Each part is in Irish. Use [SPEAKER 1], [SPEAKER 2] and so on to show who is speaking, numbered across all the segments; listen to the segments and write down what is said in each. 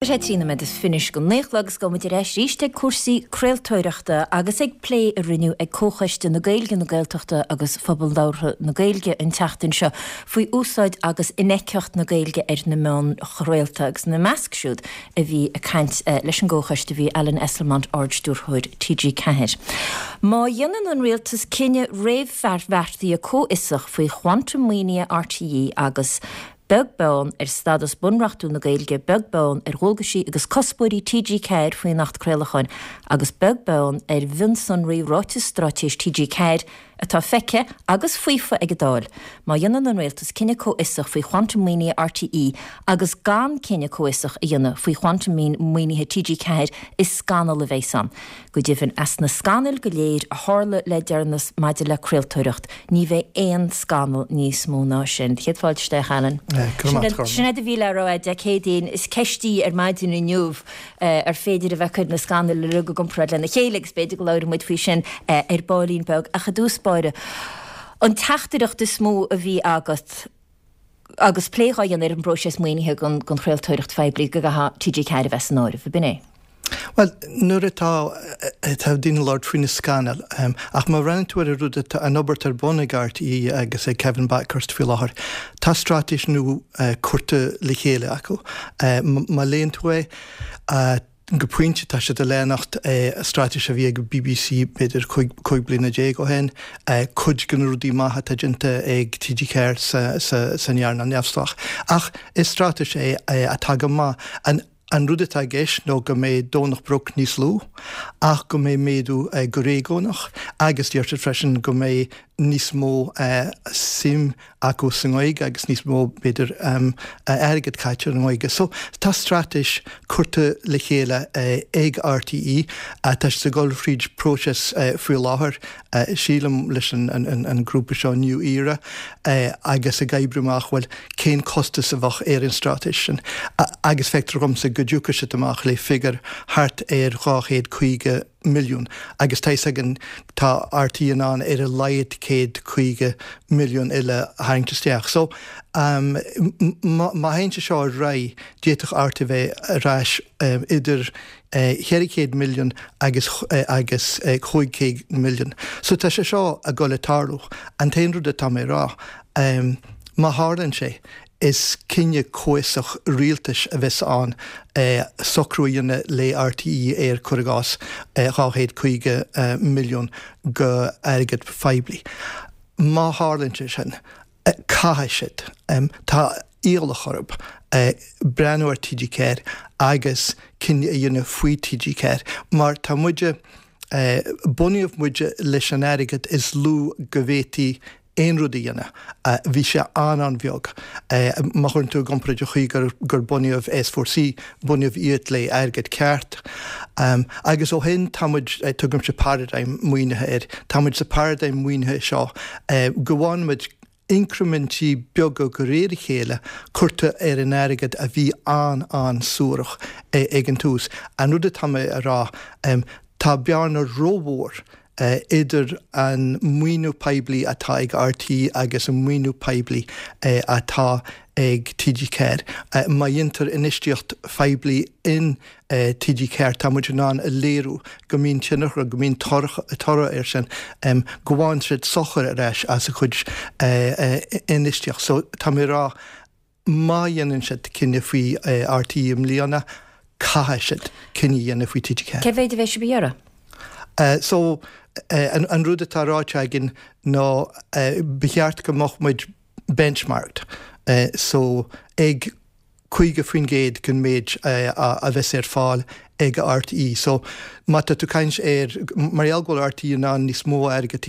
[SPEAKER 1] Tá sé 13 nóiméad go 9 a chlog agus gabhfaidh muid ar ais arís ag cúrsaí craoltóireachta agus ag plé a rinneadh ag Comhchoiste na Gaeilge, na Gaeltachta agus Phobal Labhartha na Gaeilge an tseachtain seo faoi úsáid agus infheictheacht na Gaeilge ar na meáin chraolta agus ina measc siúd a bhí ag caint leis an gComhchoiste bhí Alan Esslemont, Ard-Stiúrthóir TG4. Má dhéanann an Rialtas cinneadh réamhbheartaithe comhfhiosach faoi chwantam maoinithe RTÉ agus Beag beann ar stadas bunreachtúil na Gaeilge, beag beann ar dhualgaisí agus cuspóirí TG4 faoin Acht Craolacháin agus beag beann ar mhionsonraí Ráiteas Straitéis TG4 atá feicthe agus faofa ag an Dáil, má dhéanann an Rialtas cinneadh comhfhiosach faoi chwantam maoinithe RTÉ agus gan cinneadh comhfhiosach a dhéanamh faoi chwantam maoinithe TG4 is scannal a bheas ann. Go deimhin, as na scannail go léir a tharla le deireanas maidir le craoltóireacht, ní bheidh aon scannal níos mó ná sin. Céad fáilte isteach, Alan. Sin é do mhíle a raibh Dé Céadaoin. Is ceist í ar maidin inniu ar féidir a bheith ag cur na scannail uilig i gcomparáid lena chéile agus b'fhéidir go labhróidh muid faoi sin ar baillín beag. Ach i dtús báire, an teachtaireacht is mó a bhí agat, agus plé dhá dhéanamh ar an bpróiseas maoinithe don chraoltóireacht phoiblí go gcaithfeadh TG4 a bheith san áireamh, ab in é?
[SPEAKER 2] Bhuel, nuair atá, tá daoine ag labhairt faoi na scannail, ach má bhreathnaíonn tú ar an rud atá, an obair atá ar bun ag RTÉ agus ag Kevin Bakhurst faoi láthair, tá straitéis nua curtha le chéile acu. Má léann tú é, Go pointe, tá siad ag leanacht straitéis a bhí ag BBC b'fhéidir 15 bliana ó shin, cuid de na rudaí maithe atá déanta ag TG4 san earnáil neamhspleách. Ach is straitéis é atá go maith. An rud atá i gceist nó go mbeidh Domhnach Broc níos lú ach go mbeidh méadú go réigiúnach agus deir siad freisin go mbeidh níos mó suim acu sa nGaeilge agus níos mó, b'fhéidir, airgead caite ar an nGaeilge. So, tá straitéis curtha le chéile ag RTÉ. Tá siad ag dul thríd próiseas faoi láthair, sílim, leis an grúpa seo New Era agus ag oibriú amach, bhuel, cén costas a bheadh ar an straitéis sin. Agus feictear dhomsa go dtiocfaidh siad amach le figiúr thart ar 250 milliún agus tá fhios againn tá RTÉ in ann ar a laghad 150 milliún eile a tharraingt isteach. So má théann sé seo ar aghaidh d'fhéadfadh RTÉ bheith ar ais idir 400 milliún agus agus 500 milliún. So tá sé seo ag dul ag tarlú. An t-aon rud atá mé a rá, má tharlaíonn sé, Is cinneadh comhfhiosach rialtais a bheas ann socrú a dhéanamh le RTÉ ar, cuir i gcás, 250 milliún go airgead phoiblí. Má tharlaíonn sé sin, caithfidh siad, tá iallach orthu, breathnú ar TG4 agus cinneadh a dhéanamh faoi TG4 mar tá muide, bunaíodh muid leis an airgead is lú go bhféadfaí aon rud a dhéanamh. Bhí sé an-an-bheag. Má chuireann tú i gcomparáid an chaoi gur bunaíodh S4C, bunaíodh iad le airgead ceart. Agus ó shin tá muid, tugaimse paradigm maoinithe air, tá muid sa paradigm maoinithe seo go bhfaigheann muid incrimintí beaga de réir a chéile curtha ar an airgead a bhí an-an-suarach ag an tús. An rud atá mé a rá, tá bearna rómhór idir an maoiniú poiblí atá ag RTÉ agus an maoiniú poiblí atá ag TG4. Má dhéantar infheistíocht phoiblí in TG4 tá muid in ann a léiriú go mbíonn tionchar, go mbíonn toradh air sin, go bhfaigheann siad sochar ar ais as a chuid infheistíocht. So tá mé ag rá Má dhéanann siad cinneadh faoi RTÉ i mbliana, caithfidh siad cinneadh a dhéanamh faoi TG4.
[SPEAKER 1] Cé mhéid a bheidh sibh a iarraidh?
[SPEAKER 2] So, an rud atá ráite againn ná ba cheart go mbeadh muid benchmarked, so ag 50% den méid a bheas ar fáil ag RTÉ. So, má tá tú ag caint ar, mar gheall go bhfuil RTÉ in ann níos mó airgead,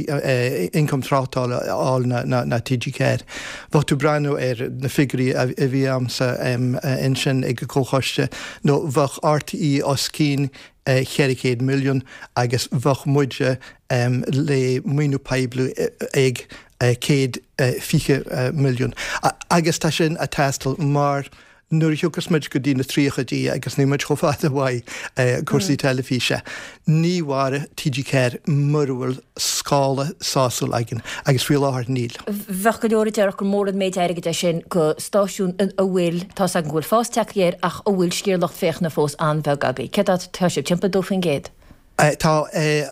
[SPEAKER 2] ioncam tráchtála a fháil ná TG4, bheadh tú ag breathnú ar na figiúirí a bhí a'msa ansin ag an gComhchoiste, nó bheadh RTÉ os cionn 400 milliún agus bheadh muide le maoiniú poiblí ag 120 milliún. Agus tá sin ag teastáil mar. Nuair a thiocfas muid go dtí na tríochaidí, agus níl muid chomh fada uaidh, cúrsaí teilifíse, ní mhairfidh TG4 mura bhfuil scála sásúil againn, agus faoi láthair níl.
[SPEAKER 1] Bheadh go leor a déarfadh gur mór an méid airgid é sin go stáisiún a bhfuil, tá's agam go bhfuil fás tagtha air, ach a bhfuil sciar lucht féachana fós an-bheag agaibh. Céard atá sibh, timpeall 2%?
[SPEAKER 2] Tá.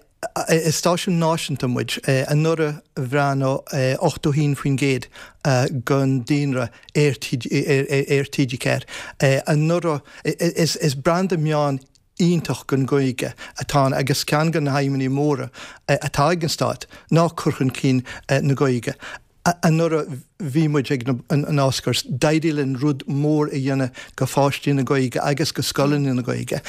[SPEAKER 2] Is stáisiún náisiúnta muid. Anuraidh bhreathnaigh 81% den daonra ar TG4. Anuraidh, is branda meán iontach don Ghaeilge atá ann agus ceann de na haidhmeanna móra atá ag an Stát ná cur chun cinn na Gaeilge. Anuraidh bhí muid ag an Oscars. D'éirigh linn rud mór a dhéanamh go pháistí na Gaeilge agus go scoileanna na Gaeilge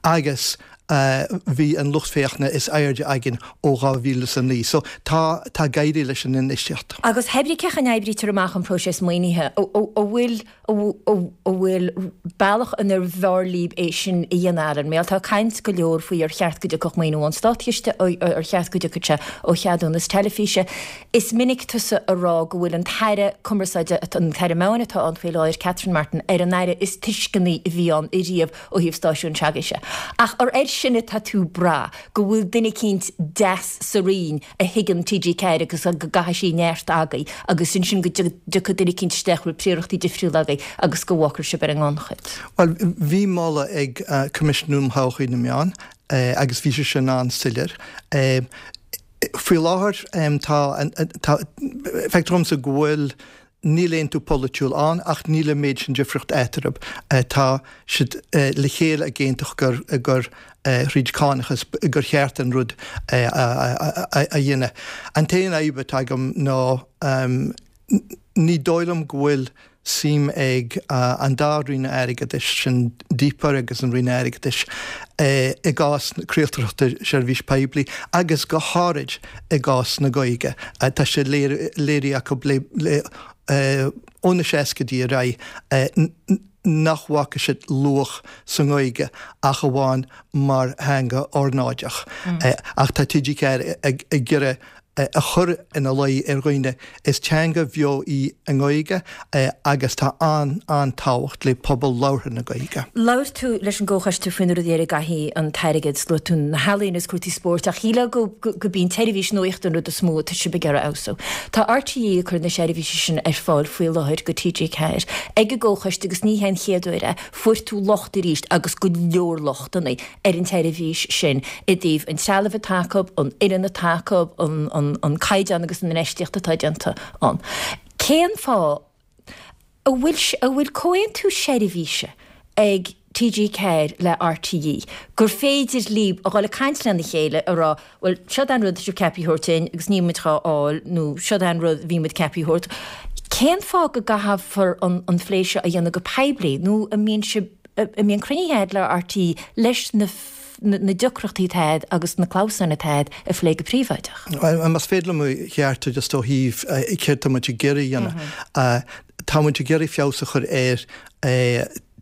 [SPEAKER 2] agus bhí an lucht féachana is airde againn ó 2009. So tá, tá ag éirí leis an infheistíocht.
[SPEAKER 1] Agus hé brí cén chaoi a n-oibrítear amach an próiseas maoinithe, an bhfuil an bhfuil bealach inar bhfearr libh é sin a dhéanamh, Alan? Mar tá caint go leor faoi ar cheart go dtiocfadh maoiniú ón státchiste, ar cheart go dtiocfadh sé ó cheadúnas teilifíse. Is minic tusa a rá go bhfuil an tAire Cumarsáide, an tAire Meáin atá ann faoi láthair, Catherine Martin, ar an Aire is tuisceanaí a bhí ann ariamh ó thaobh stáisiún s'agaibhse. Ach ar air sin atá tú ag brath, go bhfuil duine eicínt deas sa Roinn a thuigeann TG4 agus go gcaithfidh sí neart agaibh agus ansin go dtiocfaidh duine eicínt isteach a bhfuil príorachtaí difriúla agaibh agus go bhfágfar sibh ar an ngannchuid.
[SPEAKER 2] Bhuel, bhí moladh ag Coimisiún um Thodhchaí na Meán agus bhí sé sin an-soiléir. Faoi láthair tá, tá, feictear dhomsa go bhfuil Níl aontú polaitiúil ann ach níl an méid sin difríocht eatarthu. Tá siad le chéile ag aontú gur gur thríd cánachas gur cheart an rud a dhéanamh. An t-aon fhadhb atá agam ná ní dóigh liom go bhfuil suim ag an dá Roinn Airgeadais, sin DPER agus an Roinn Airgeadais, i gcás craoltóireachta seirbhís poiblí agus go háirid i gcás na Gaeilge. Tá sé léirithe acu le ó na seascaidí ar aghaidh nach bhfaca siad luach sa nGaeilge ach amháin mar theanga ornáideach. Ach tá TG4 ag iarraidh a chur ina luí ar dhaoine, is teanga bheo í an Ghaeilge agus tá an-an-tábhacht le pobal labhartha na Gaeilge.
[SPEAKER 1] Labhair tú leis an gComhchoiste faoi na rudaí ar a gcaithfidh an t-airgead, luaigh tú na healaíona is cúrsaí spóirt ach shílfeá go gurb í an tseirbhís nuachta an rud is mó atá sibh ag iarraidh a fheabhsú. Tá RTÉ ag cur na seirbhíse sin ar fáil faoi láthair go TG4 ag an gComhchoiste agus ní hé an chéad uair é. Fuair tú locht arís agus go leor lochtanna. ar an tseirbhís sin i dtaobh an trealaimh atá acu, an fhoireann atá acu, an caighdeán agus an infheistíocht atá déanta ann. Cén fáth a bhfuil a bhfuil comhaontú seirbhíse ag TG4 le RTÉ gur féidir libh a dhul ag caint lena chéile a rá bhuel seod é an rud atá sibh ceaptha a thabhairt dúinn agus níl muid dhá fháil nó seod é an rud a bhí muid ceaptha a thabhairt. Cén fáth go gcaithfear an phlé seo a dhéanamh go poiblí nó an mbíonn sibh an mbíonn cruinnithe agat le RTÉ leis na na deacrachtaí atá agat agus na clamhsáin atá agat a phlé go príobháideach.
[SPEAKER 2] Más féidir liom a cheartú just ó thaobh céard tá muid ag iarraidh a dhéanamh. Tá muid ag iarraidh feabhas a chur ar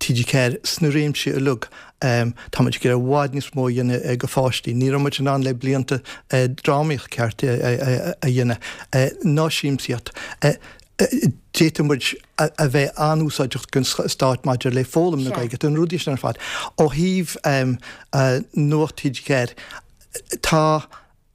[SPEAKER 2] TG4 sna réimsí uilig. Tá muid ag iarraidh i bhfad níos mó a dhéanamh go pháistí. Ní raibh muid in ann le blianta drámaíocht ceart a dhéanamh, ná siamsaíocht. D'fhéadfadh muid a bheith an-úsáideach don stát maidir le foghlaim na Gaeilge, na rudaí sin ar fad. Ó thaobh Nuacht TG4, tá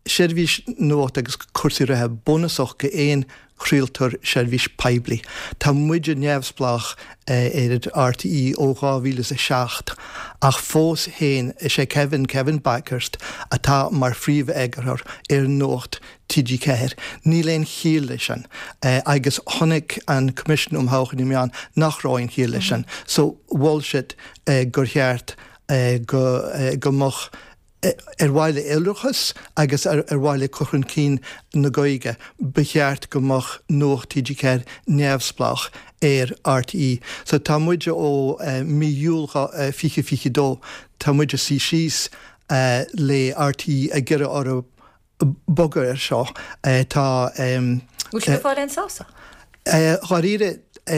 [SPEAKER 2] seirbhís nuachta agus cúrsaí reatha bunúsach go aon chraoltóir seirbhís poiblí. Tá muide neamhspleách ar RTÉ ó 2007 ach fós féin is é Kevin, Kevin Bakhurst, atá mar phríomh-eagarthóir ar Nuacht TG4. Níl aon chiall leis sin. Agus chonaic an Coimisiún um Thodhchaí na Meán nach raibh aon chiall leis sin. So mhol siad gur cheart go go mbeadh ar mhaithe le iolrachas agus ar mhaithe le cur chun cinn na Gaeilge, ba cheart go mbeadh Nuacht TG4 neamhspleách ar RTÉ. So tá muid ó mí Iúil 2022, tá muid ag suí síos le RTÉ ag iarraidh orthu bogadh air seo. Tá.
[SPEAKER 1] Bhfuil sibh ag fáil aon sásamh?
[SPEAKER 2] Dháiríre,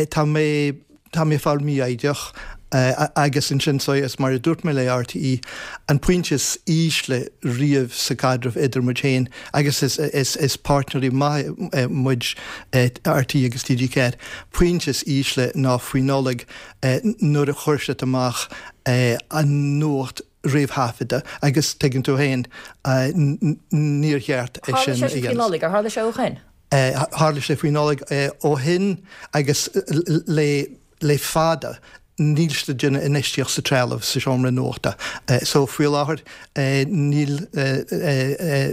[SPEAKER 2] tá mé, tá mé ag fáil mífhoighdeach. Agus ansin so is mar a dúirt mé le RTÉ, an pointe is ísle riamh sa chaidreamh idir muid féin agus is is is páirtnéirí maithe muid RTÉ agus TG4, pointe is ísle ná faoi Nollaig nuair a chuir siad amach an nuacht réamhthaifeadta agus tuigeann tú féin níor cheart
[SPEAKER 1] é sin a dhéanamh. Tharla sé sin faoi Nollaig, ar tharla sé ó
[SPEAKER 2] shin? Tharla sé faoi Nollaig ó shin agus le le fada níl siad ag déanamh infheistíocht sa trealamh sa seomra nuachta. So faoi láthair níl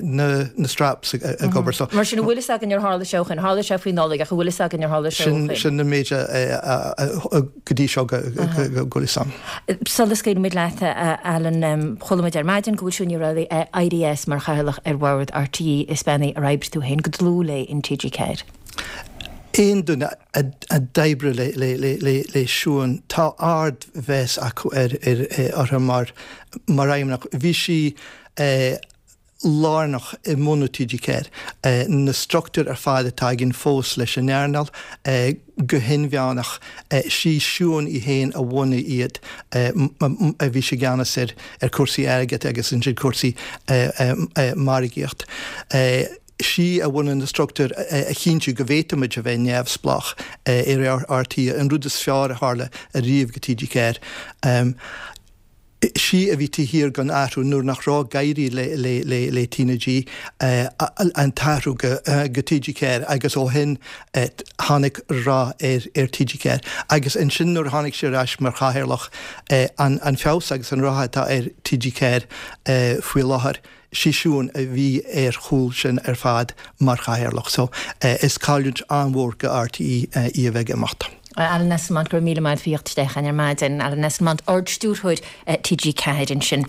[SPEAKER 2] na straps ag obair. So.
[SPEAKER 1] Mar sin an bhfuil fhios againn ar tharla sé ó shin? Tharla sé faoi Nollaig ach an bhfuil fhios againn ar tharla sé ó
[SPEAKER 2] shin? Sin an méid go dtí seo go bhfuil fhios
[SPEAKER 1] agam. Sula scaoilfimid leat, a Alan, chuala muid ar maidin go bhfuil Siún Ní Raghallaigh éirithe as mar chathaoirleach ar bhord RTÉ. Is bean í ar oibrigh tú féin go dlúth léi in TG4.
[SPEAKER 2] Aon duine a d'oibrigh le Siún, tá ardmheas acu uirthi mar fheidhmeannach. Bhí sí lárnach i mbunú TG4. Na struchtúir ar fad atá againn fós leis an earnáil, go hinmheánach, sí Siún í féin a bhunaigh iad. Bhí sí i gceannas ar chúrsaí airgid agus ansin cúrsaí margaíocht. Sí a bhunaigh na struchtúir a chinntiú go bhféadfaimid a bheith neamhspleách ar RTÉ, an rud is fearr a tharla ariamh go TG4. Sí a bhí taobh thiar den athrú nuair nach raibh ag éirí le TnaG, an t-athrú go TG4 agus ó shin tháinig rath ar TG4. Agus ansin nuair a tháinig sí ar ais mar chathaoirleach, an feabhas agus an rath atá ar TG4 faoi láthair, Sí Siún a bhí ar chúl sin ar fad mar chathaoirleach so is cailliúint an-mhór go RTÉ í a bheith ag imeacht.
[SPEAKER 1] Alan Esslemont, go raibh míle maith agat faoi theacht isteach chugainn ar maidin. Alan Esslemont, Ard-Stiúrthóir TG4 ansin.